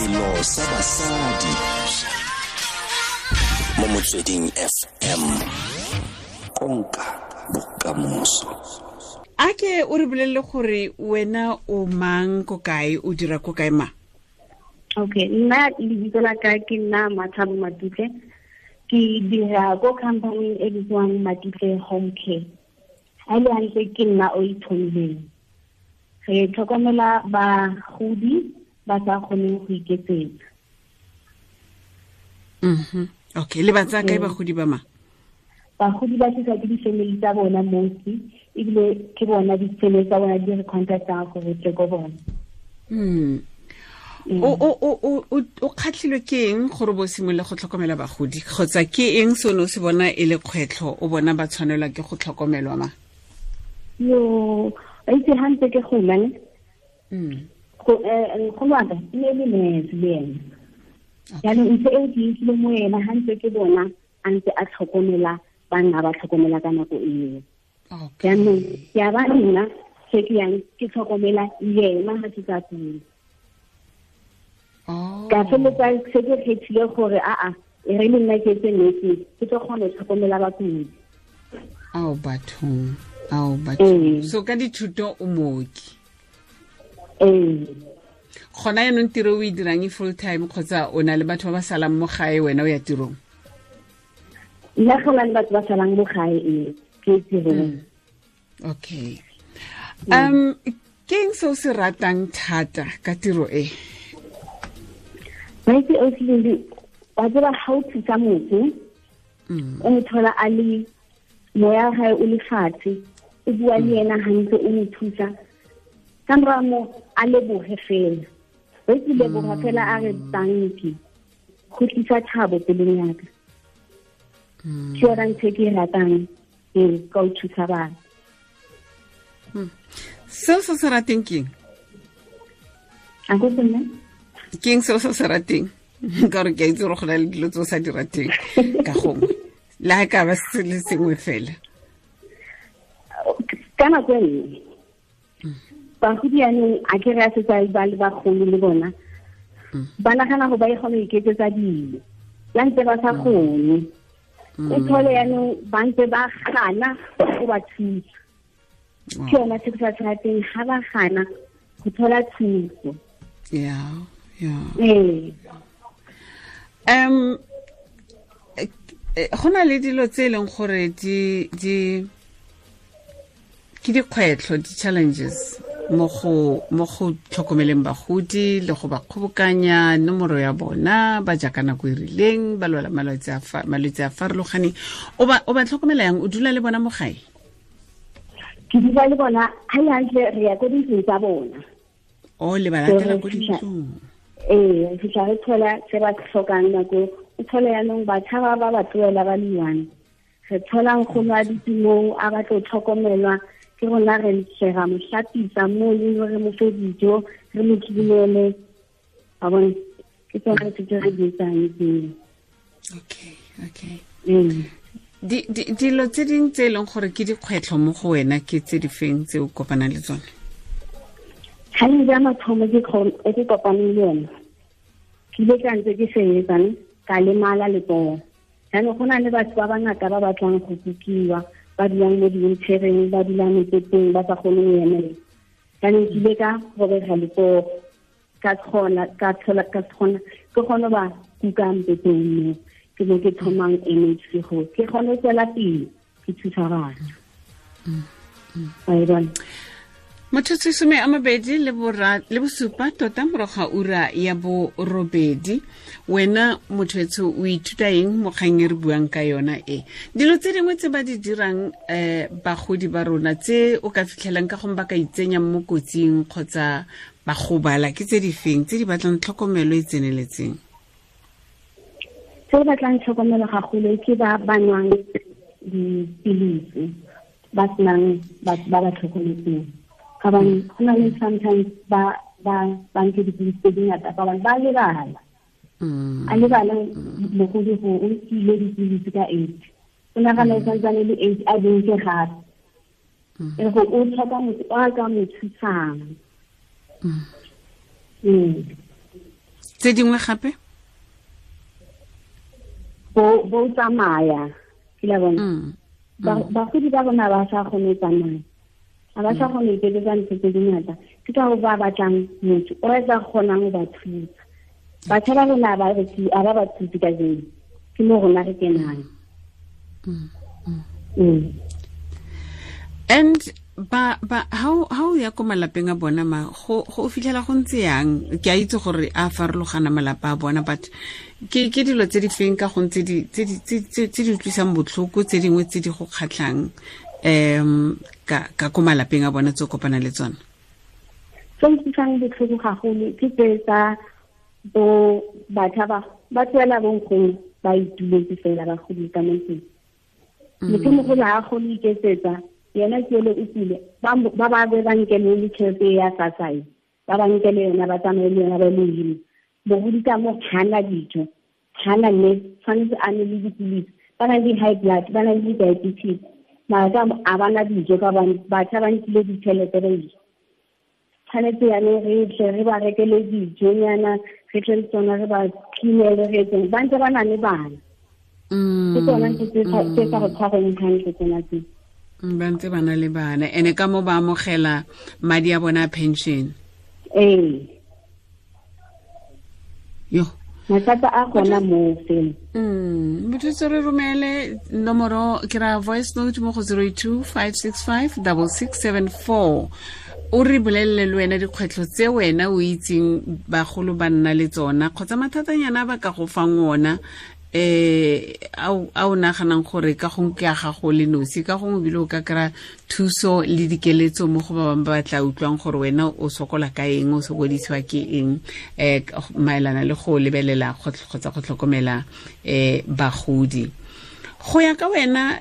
Selo sa basadi mo Motsweding FM, konka bokamoso. A ke o re bolelele gore wena o mang, ko kae, o dira ko kae, ma? Okay, nna lebitso la ka ke nna Mathabo Matutle. Ke dira ko company e bitswang Matutle Home Care. Ha le hantle ke nna o ithomileng. Re tlhokomela bagodi ba sa kgoneng go iketsetsa. Okay, le ba tsaya kae bagodi ba, ma? Bagodi ba tlisa ke di-family tsa bona mostly, ebile ke bona di-family tsa bona di re contactang gore tle ko bona. O kgatlhilwe ke eng gore bo simolole go tlhokomela bagodi, kgotsa ke eng se o ne o se bona e le kgwetlho, o bona ba tshwanelwa ke go tlhokomelwa, ma? Yo, ba itse ha ntse ke gola ne. Nkgono wa ka e ne le nurse le ena. Jaanong ntho eo ke utlwile mo ena ha ntse ke bona a ntse a tlhokomela ba nna ba tlhokomela ka nako eo. Jaanong ke a ba nna se ke yang ke tlhokomela yena ha ke sa kula. Ka feleletsa se ke kgethile gore aa, e re le nna ke etse nursing, ke tlo kgona go tlhokomela bakudi. Ao bathong, ao bathong. So ka dithuto o mooki? Ee. Gona yaanong tiro o e dirang e full time, kgotsa o na le batho ba ba salang mo gae, wena o ya tirong? Nna go na le batho ba salang mo gae, ee, ke tirong. Okay, ke eng se o se ratang thata ka tiro e? Maitse o tlile, wa tseba, ga o thusa motho, o mo thola a le moya wa gae o le fatshe, o bua le ena hantle, o mo thusa, ka mora mo a leboge fela, o itse, leboga fela, a re thank you, go tlisa thabo pelong yaka. Ke yona ntho e ke e ratang, ee, ka o thusa batho. Seo se se rateng keng? A ko nna? Ke eng seo se se rateng? Ka gore ke a itse gore go na le dilo tse o sa di rateng ka gongwe, le ga ka ba se le sengwe fela. Ka nako e nngwe bagodi yanong, a ke re a setse ba le bagolo le bona, ba nagana go ba e kgone go iketsetsa dilo la ntse ba sa kgone. O thole yanong ba ntse ba gana go ba thusa. Ke yona se ke sa se rateng, ga ba gana go thola thuso. ya ya Ee. Go na le dilo tse e leng gore di ke dikgwetlho, di-challenges mo go tlhokomeleng bagodi le go ba kgobokanya nomoro ya bona, ba ja ka nako e rileng, ba lwala malwetse a farologaneng. O ba tlhokomela yang? O dula le bona mo gae? Ke dula le bona ga le hantle, re ya ko dintlong tsa bona. O le ba latela ko dintlong? Ee, re fitlha re thola se ba tlhokang nako. O thole yaanong batjha ba ba ba tlohela ba le one. Re thola nkgono a dutse moo, a batla ho tlhokomelwa ke rona, re tle ra mo hlapisa mo le re mo fe dijo, re mo cleanele, wa bona. Ke tsona tse re di etsang tseo. Okay. Dilo tse ding tse e leng gore ke dikgwetlho mo go wena ke tse di feng tse o kopanang le tsone? Challenge ya mathomo e ke kopaneng le yone, ke ile ka ntse ke sebetsang, ka lemala letsogo. Jaanong go na le batho ba bangata ba batlang go kukiwa, ba dulang mo di-wheelchaireng, ba dulang mepeteng, ba sa kgone go emela. Jaanong ke ile ka robega letsogo, ka kgona ka thola ka kgona ke kgone ba kuka mpeteng mo ke mo ke thomang MHC go ke kgone go tswela pele ke thusa batho, wa e bona. Motsotso 27 tota morago ga ura ya 8. Wena motho etsho, o ithuta eng mo kgang e re buang ka yona e? Dilo tse dingwe tse ba di dirang bagodi ba rona, tse o ka fitlhelang ka gongwe ba ka itsenya mo kotsing kgotsa ba gobala, ke tse di feng tse di batlang tlhokomelo e tseneletseng? Tse batlang tlhokomelo gagolo ke ba ba nwang dipilisi, ba senang batho ba ba tlhokometseng, ka bane go na le sometimes ba nke dipilisi tse dingata, ka bane ba lebala. A lebala mogodi go o nkile dipilisi ka 8, o nagana e santsane le 8, a dinke gape. E go o tlhoka motho o a ka mo thusang. Tse dingwe gape? Bo tsamaya, ke la bona. Bagodi ba rona ba sa kgone go tsamaya. Ga ba sa kgone go iketsetsa ntho tse dingata. Ke ka go ba batlang motho o tla kgonang go ba thusa. Batjha ba rona ba ba ba thuse ka jeno. Ke mo rona re kenang. And ba how ya ko malapeng a bona ma go fitlhela go ntse yang? Ke a itse gore a farologana malapa a bona, but ke dilo tse di feng ka go ntse tse di utlwisang botlhoko, tse dingwe tse di go kgatlhang ka ko malapeng a bona tse o kopana le tsona? Tse utlwisang botlhoko gagolo ke tse tsa bo batjha ba tswela bonkgono ba ituletse fela ba godile ka mo ntlong. Motho mogolo ha a kgone iketsetsa, yena ke ele o tsile, ba ba be ba nkele le tjhelete ya SASSA, ba ba nkele yona, ba tsamaye le yona ba le hile. Bogodi ka mo hana dijo, hana le tshwanetse a nwe le dipilisi, ba na le high blood, ba na le diabetes, mara ka a ba na dijo ka bane batjha ba nkile ditjhelete ba ile. Tshwanetse yanong re tle re ba rekele dijonyana, re tle le tsona re ba cleanele, re etseng, ba ntse ba na le bana. Ke tsona ntho tse sa go tshwareng hantle tsona tse. Ba ntse ba na le bana, ene ka mo ba amogela madi a bona pension. Ee. Yo. Mathata a gona moo fela. Motho tse re romele nomoro ke ra voice note mo go 082 565 6674. O re bolelele le wena dikgwetlho tse wena o itseng bagolo ba nna le tsona kgotsa mathatanyana ba ka go fang ona, a o naganang gore ka gongwe ke a gago le nosi, ka gongwe ebile o ka kry-a thuso le dikeletso mo go ba bangwe ba ba tla utlwang gore wena o sokola ka eng, o sokodisiwa ke eng, maelana le go lebelela kgotsa go tlhokomela bagodi. Go ya ka wena,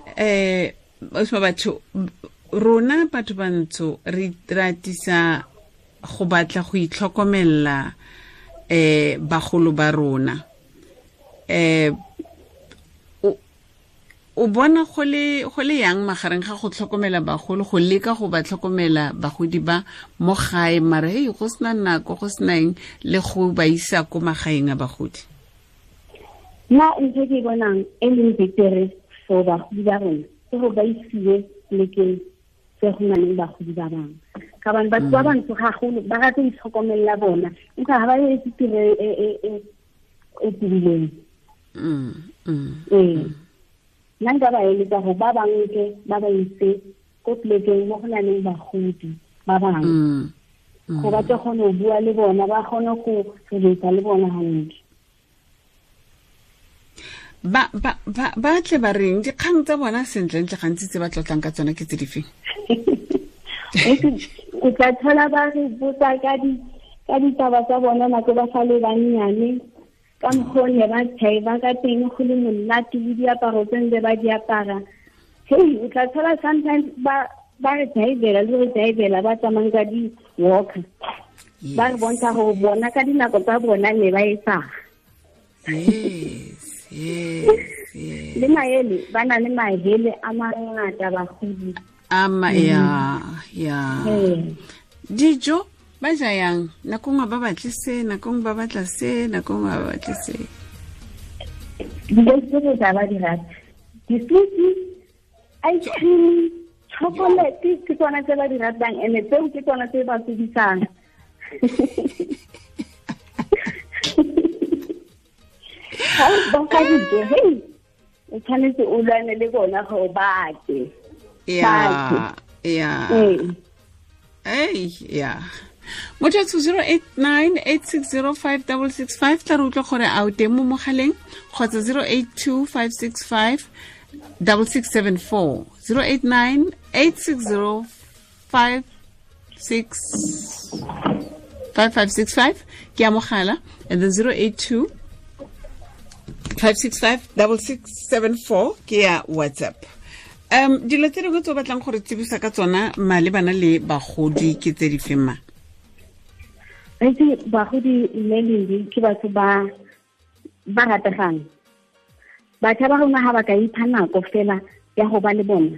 batho rona batho bantsho re ratisa go batla go itlhokomela bagolo ba rona. O bona go le yang magareng ga go tlhokomela bagolo, go leka go ba tlhokomela bagodi ba mo gae, mara hey go sena nako, go sena eng, le go ba isa ko magaeng a bagodi? Nna ntho ke bonang e leng betere for bagodi ba rona ke go ba isiwe plekeng tse go nang le bagodi ba bangwe, ka bane batho ba bantsho gagolo ba rata go itlhokomelela bona, empa ga ba etse tiro e tibileng. Ee, nna nka ba eletsa gore ba bangwe ba ba ise ko plekeng mo go nang le bagodi ba bangwe, go ba tle kgone go bua le bona, ba kgone go relate le bona hantle. Ba tle ba reng dikgang tsa bona sentlentle gantsi tse ba tlotlang ka tsona ke tse di feng? O tla thola ba re botsa ka ditaba tsa bona nako ba sa le bannyane, ka mokgwa ne ba tshaiba ka teng, go le monate le diaparo tse ntse ba di apara. Hey, o tla thola sometimes ba re thaibela le re thaibela ba tsamayang ka di-walker. Ba re bontsha gore bona ka dinako tsa bona ne ba etsang. Yes, yes, yes. Le maele, ba na le mahele a mangata bagodi. Ama ya, ya. Dijo ba ja yang? Nako nngwe ba batle se, nako nngwe ba batla se, nako nngwe ba batle se. Dijo tse tsa ba di rata. Disuti, ice cream, chocolate ke tsona tse ba di ratang, ene tseo ke tsona tse ba tsebisang. Ha ba ka dijo, hey, o tshwanetse o lwane le bona gore ba tle. Yeah, yeah. Hey, yeah. Motho 089 860 5665 tla re utlwa gore a o teng mo mogaleng, kgotsa 082 565 6674. 089 860 5565 ke a mogala, and then 082 565 6674 ke ya WhatsApp. Dilo tse dingwe tse o batlang gore tsebisa ka tsona malebana le bagodi ke tse di feng ma? Itse bagodi mme Lindi ke batho ba rategang. Batjha ba rona ha ba ka ipha nako fela ya go ba le bona,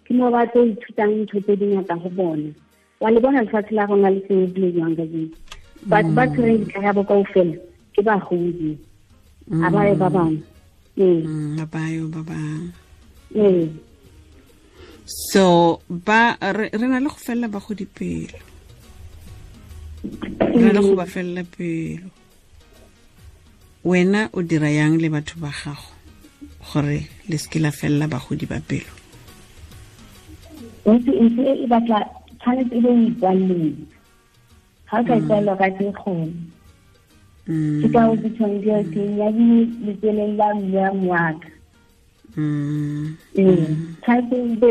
ke mo ba tlo ithutang ntho tse dingata go bona. Wa le bona lefatshe la rona le senyegile jwang kajeno. Batho ba tshwereng dikarabo kaofela Ke bagodi. A ba ye ba bangwe. A ba yo ba bangwe. So ba re na le go felela bagodi pelo. Re na le go ba felela pelo. Wena o dira yang le batho ba gago gore le seke la felela bagodi ba pelo? Ntse e batla tshwanetse e be o ikwalleng. Ga o ka ikwalla ka se kgone. Ke ka o bitshwang ke teng ya letseleng la mme wa moaka. Tshwanetse o be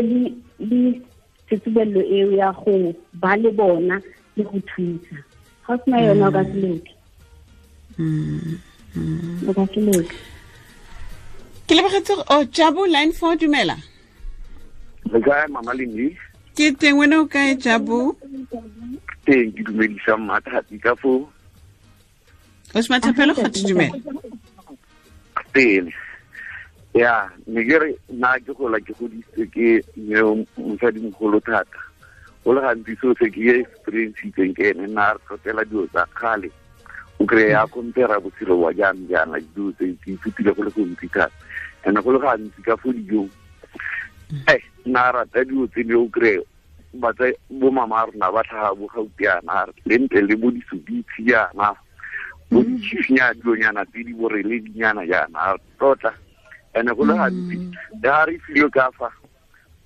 le tsetsebello eo ya go ba le bona le go thusa. Ga o sena yona o ka se loke. O ka se loke. Ke lebogetse o Jabu line 4 dumela. Le kae Mama Lindi? Ke teng, wena o kae Jabu? Teng, ke dumedisa Mmathati ka foo. O se mathapelo go dumela. Teng. Ya, ne ke re nna ke gola ke godisitswe ke mme mosadimogolo thata. Go le gantsi seo se ke experience-itseng ke ene, nna re tlotlela dilo tsa kgale. O kry-a compare botshelo wa jaanong jaana dilo tse ke ithutile go le gontsi thata. And go le gantsi ka fo dijong, nna rata dilo tse di o kry-e batsa bo mama rona ba tlhaga bo gautiana le ntle le bo disubitsi jaana, bo ditšhifinyana dilonyana tse di boreledinyana jaana tlotla. And go le gantsi le ga re filwe ka fa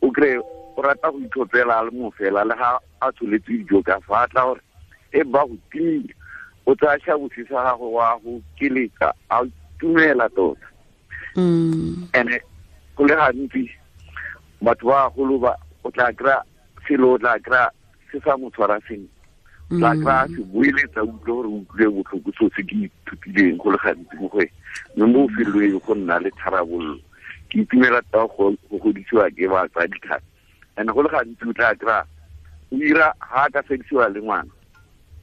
o kry-e o rata go itlhophela a le mo fela le ga a tsholetse dijo ka fa a tla gore e ba go timile, o tsaya šabose sa gago wa go keletsa a tumela tota. And go le gantsi batho ba bagolo ba o tla kry-a selo, o tla kry-a se sa mo tshwara sentle, o tla kry-a se boeletsa utlwe gore o utlwile botlhoko seo se ke ithutileng go le gantsi mo go ene. Mme mo felelong go nna le tharabollo. Ke itumela tota go godisiwa ke batsadi thata. And go le gantsi o tla kry-a o ira ga a ka fedisiwa le ngwana,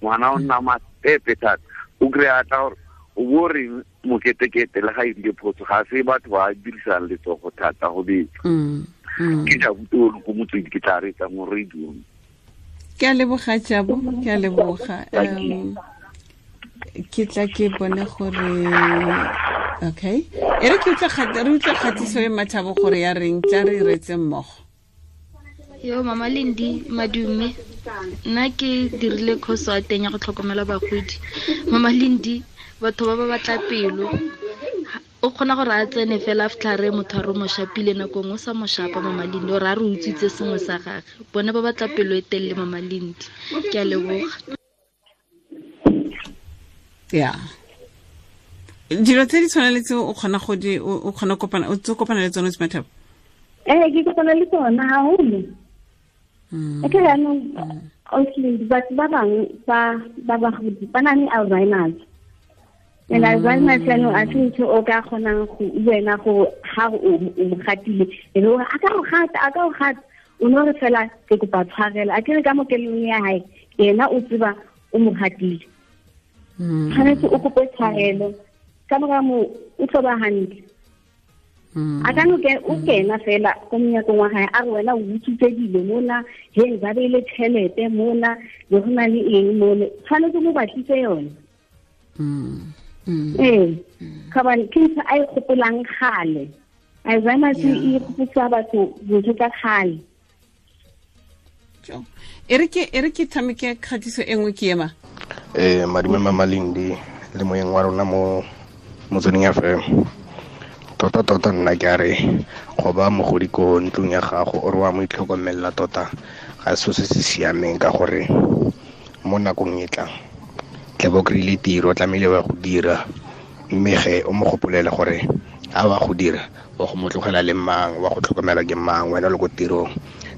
ngwana o nna matepe thata. O kry-a tla gore o bo reng moketekete le ga e rile phoso, ga se batho ba dirisang letsogo thata go betsa. Ke Jabu ko motswedi ke tla reetsa mo radiong. Ke a leboga Jabu, ke a leboga. Ke tla ke bone gore okay. E re ke utlwe re utlwe kgatiso e Mathabo gore ya reng, tla re reetse mmogo. Yo Mama Lindi madume, nna ke dirile course ya teng ya go tlhokomela bagodi. Mama Lindi, batho ba ba batla pelo. O kgona gore a tsene fela after re motho a re mo shapile nako nngwe o sa mo shapa Mama Lindi, ore a re utswitse sengwe sa gagwe. Bone ba batla pelo e telele Mama Lindi. Ke a leboga. Yeah. Dilo tse di tshwana le tseo o kgona go di o kgona kopana o kopana le tsone Mathabo? Ke kopana le tsona haholo. Ke jaanong obviously batho ba bangwe ba bagodi ba na le Alzheimer's. And Alzheimer's jaanong a se ntho o ka kgonang go wena go ga o mo gatile e be a ka go gata, a ka go gata, o no re fela ke kopa tshwarelo, a ke re ka mo kelelong ya hae yena o tseba o mo gatile. Tshwanetse o kope tshwarelo ka mora moo o tlo ba hantle. A ka no o kena fela ko monyakong wa hae a re wena o utswitse dilo mona, he ba beile tšhelete mona, le go na le eng mone, tshwanetse mo batlise yone. Ka bane ke ntho a e gopolang kgale. Alzheimer's e gopotsa batho dintho tsa kgale. E re ke tshameke kgatiso e nngwe ke ema. Madume Mama Lindi le moyeng wa rona mo Motsweding FM. Tota nna ke a re go ba mogodi ko ntlong ya gago o re wa mo itlhokomela tota ga se se se siameng, ka gore mo nakong e tlang tle bo kry-ile tiro, tlamehile wa go dira, mme ge o mo gopolele gore a wa go dira wa go mo tlogela le mang, wa go tlhokomela ke mang, wena o le ko tirong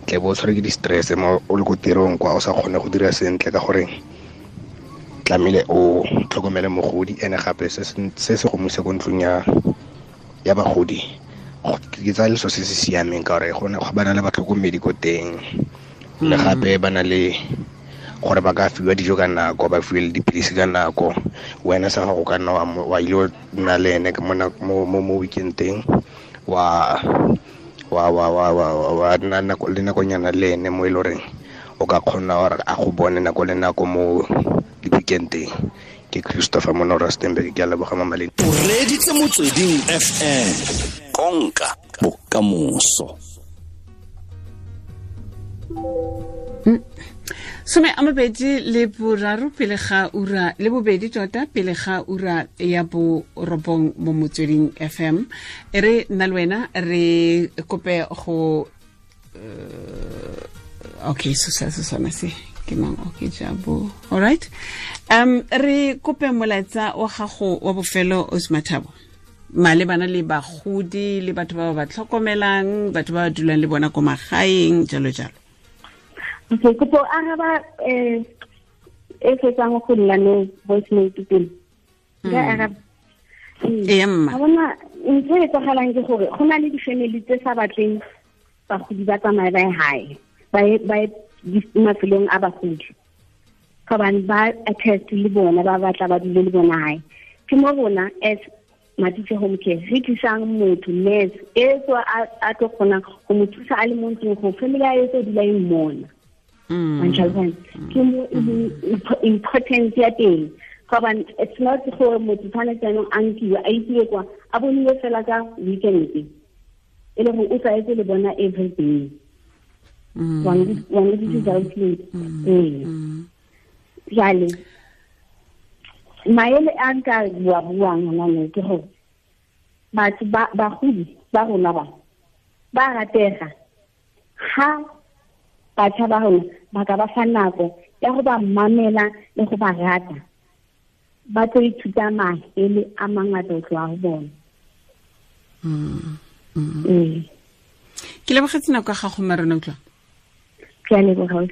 tle bo o tshware ke di-stress mo o le ko tirong kwa o sa kgone go dira sentle, ka gore tlamehile o tlhokomele mogodi. Ene gape se se go mo isa ko ntlong ya bagodi ke tsaya leso se se siameng, ka gore go ba na le batlhokomedi ko teng, le gape ba na le gore ba ka fiwa dijo ka nako, ba fiwe le dipilisi ka nako. Wena sa gago ka nna wa ile nna le ene mo weekend-eng, wa nna le nakonyana le ene mo e le goreng o ka kgona gore a go bone nako le nako mo di-weekend-eng. Ke Christopher Mono Rustenburg, ke a leboga Mama Lindi. O reditse Motsweding FM, konka bokamoso. 23 pele ga ura le bobedi tota pele ga ura ya bo 9 mo Motsweding FM. E re nna le wena re kope go okay, so se sona se ke mang? Okay, jabo. All right. Re kope molaetsa wa gago wa bofelo, Osmathabo, malebana le bagodi le batho ba ba tlhokomelang, batho ba ba dulang le bona ko magaeng, jalo jalo. Okay, kopo araba e fetsang go nna no voice note pele. Ka araba. Ee, mma. Ga bona ntho e etsagalang ke gore go na le di-family tse sa batleng bagodi ba tsamaye ba ye hae, ba ye mafelong a bagodi, gobane ba attest le bona, ba batla ba dule le bona hae. Ke mo rona as Matutse Home Care re tlisang motho, nurse e tswa a tlo kgonang go mo thusa a le mo ntlong, go family ya e tlo dula e mmona. Ke mo e leng importance ya teng, gobane it's not gore motho tshwanetse jaanong a nkiwe a isiwe kwa, a boniwe fela ka weekend, e le gore o tlwaetse le bona every day. Wa nkutlwisisa? Ee. Jale maele a nka bua buang hona ne ke gore batho ba bagodi ba rona ba ratega ha batjha ba rona ba ka ba fa nako ya go ba mamela le go ba rata, ba tlo ithuta maele a mangata ho tloha ho bona. Ke lebogetse nako ya gago, Mma rona, utlwa. Ke a leboga.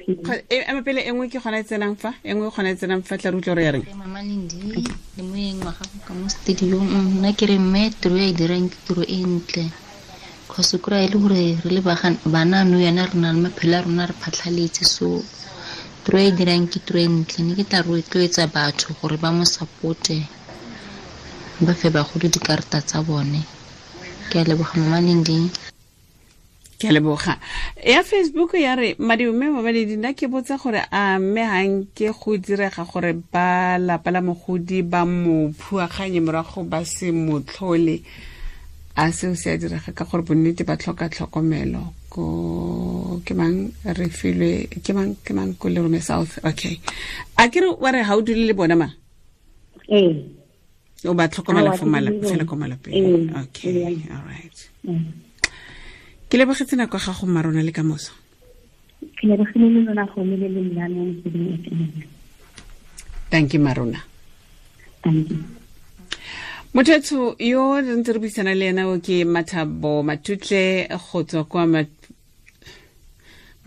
Ema pele, e nngwe ke gona e tsenang fa, e nngwe gona e tsenang fa, tla re utlwa re ya reng. Mama Lindi le moeng wa gago ka mo studiong, nna ke re mme tiro e dirang ke tiro e ntle, cause kry e le gore re le bana no yana re na le maphelo a rona re phatlhaletse, so tiro e dirang ke tiro e ntle. Ne ke tla rotloetsa batho gore ba mo supporte, ba fe bagolo dikarata tsa bone. Ke a leboga, Mama Lindi. Ke a leboga. Ya Facebook ya re, madume Mama Lindi, nna ke botsa gore a mme ga nke go direga gore ba lapa la mogodi ba mo phuaganye morago ba se mo tlhole, a seo se a direga ka gore bonnete ba tlhoka tlhokomelo? Ko ke mang re filwe, ke mang, ke mang ko Lerome South? Okay, a ke re wa re ga o dule le bona ma? Ee. O ba tlhokomela Aowa, fo ke dule le fela bona. ko malapeng. Ee. Okay, Ee. all right. Ke lebogetse nako ya gago, mma rona, le ka moso. Ke lebogile le lona go le le nna mo Motsweding FM. Thank you, Marona. Thank you. Motho yo re ntse re buisana le ena o ke Mathabo Matutle go tswa kwa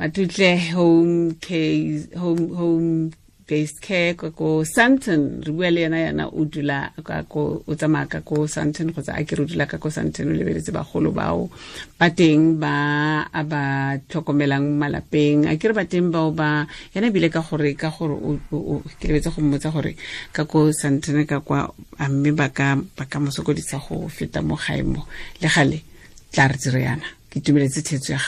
Matutle Home Case, Home Based Care ka ko Sandton. Re bua le ena yana o dula ka ko, o tsamaya ka ko Sandton, kgotsa a ke re o dula ka ko Sandton, o lebeletse bagolo bao ba teng ba a ba tlhokomelang malapeng. A ke re ba teng bao ba yena ebile ka gore, ka gore o ke lebetse go mmotsa gore ka ko Sandton ka kwa a mme ba ka mo sokodisa go feta mo gae mo. Le gale tla re dire yana. Ke itumeletse thetso ya gago.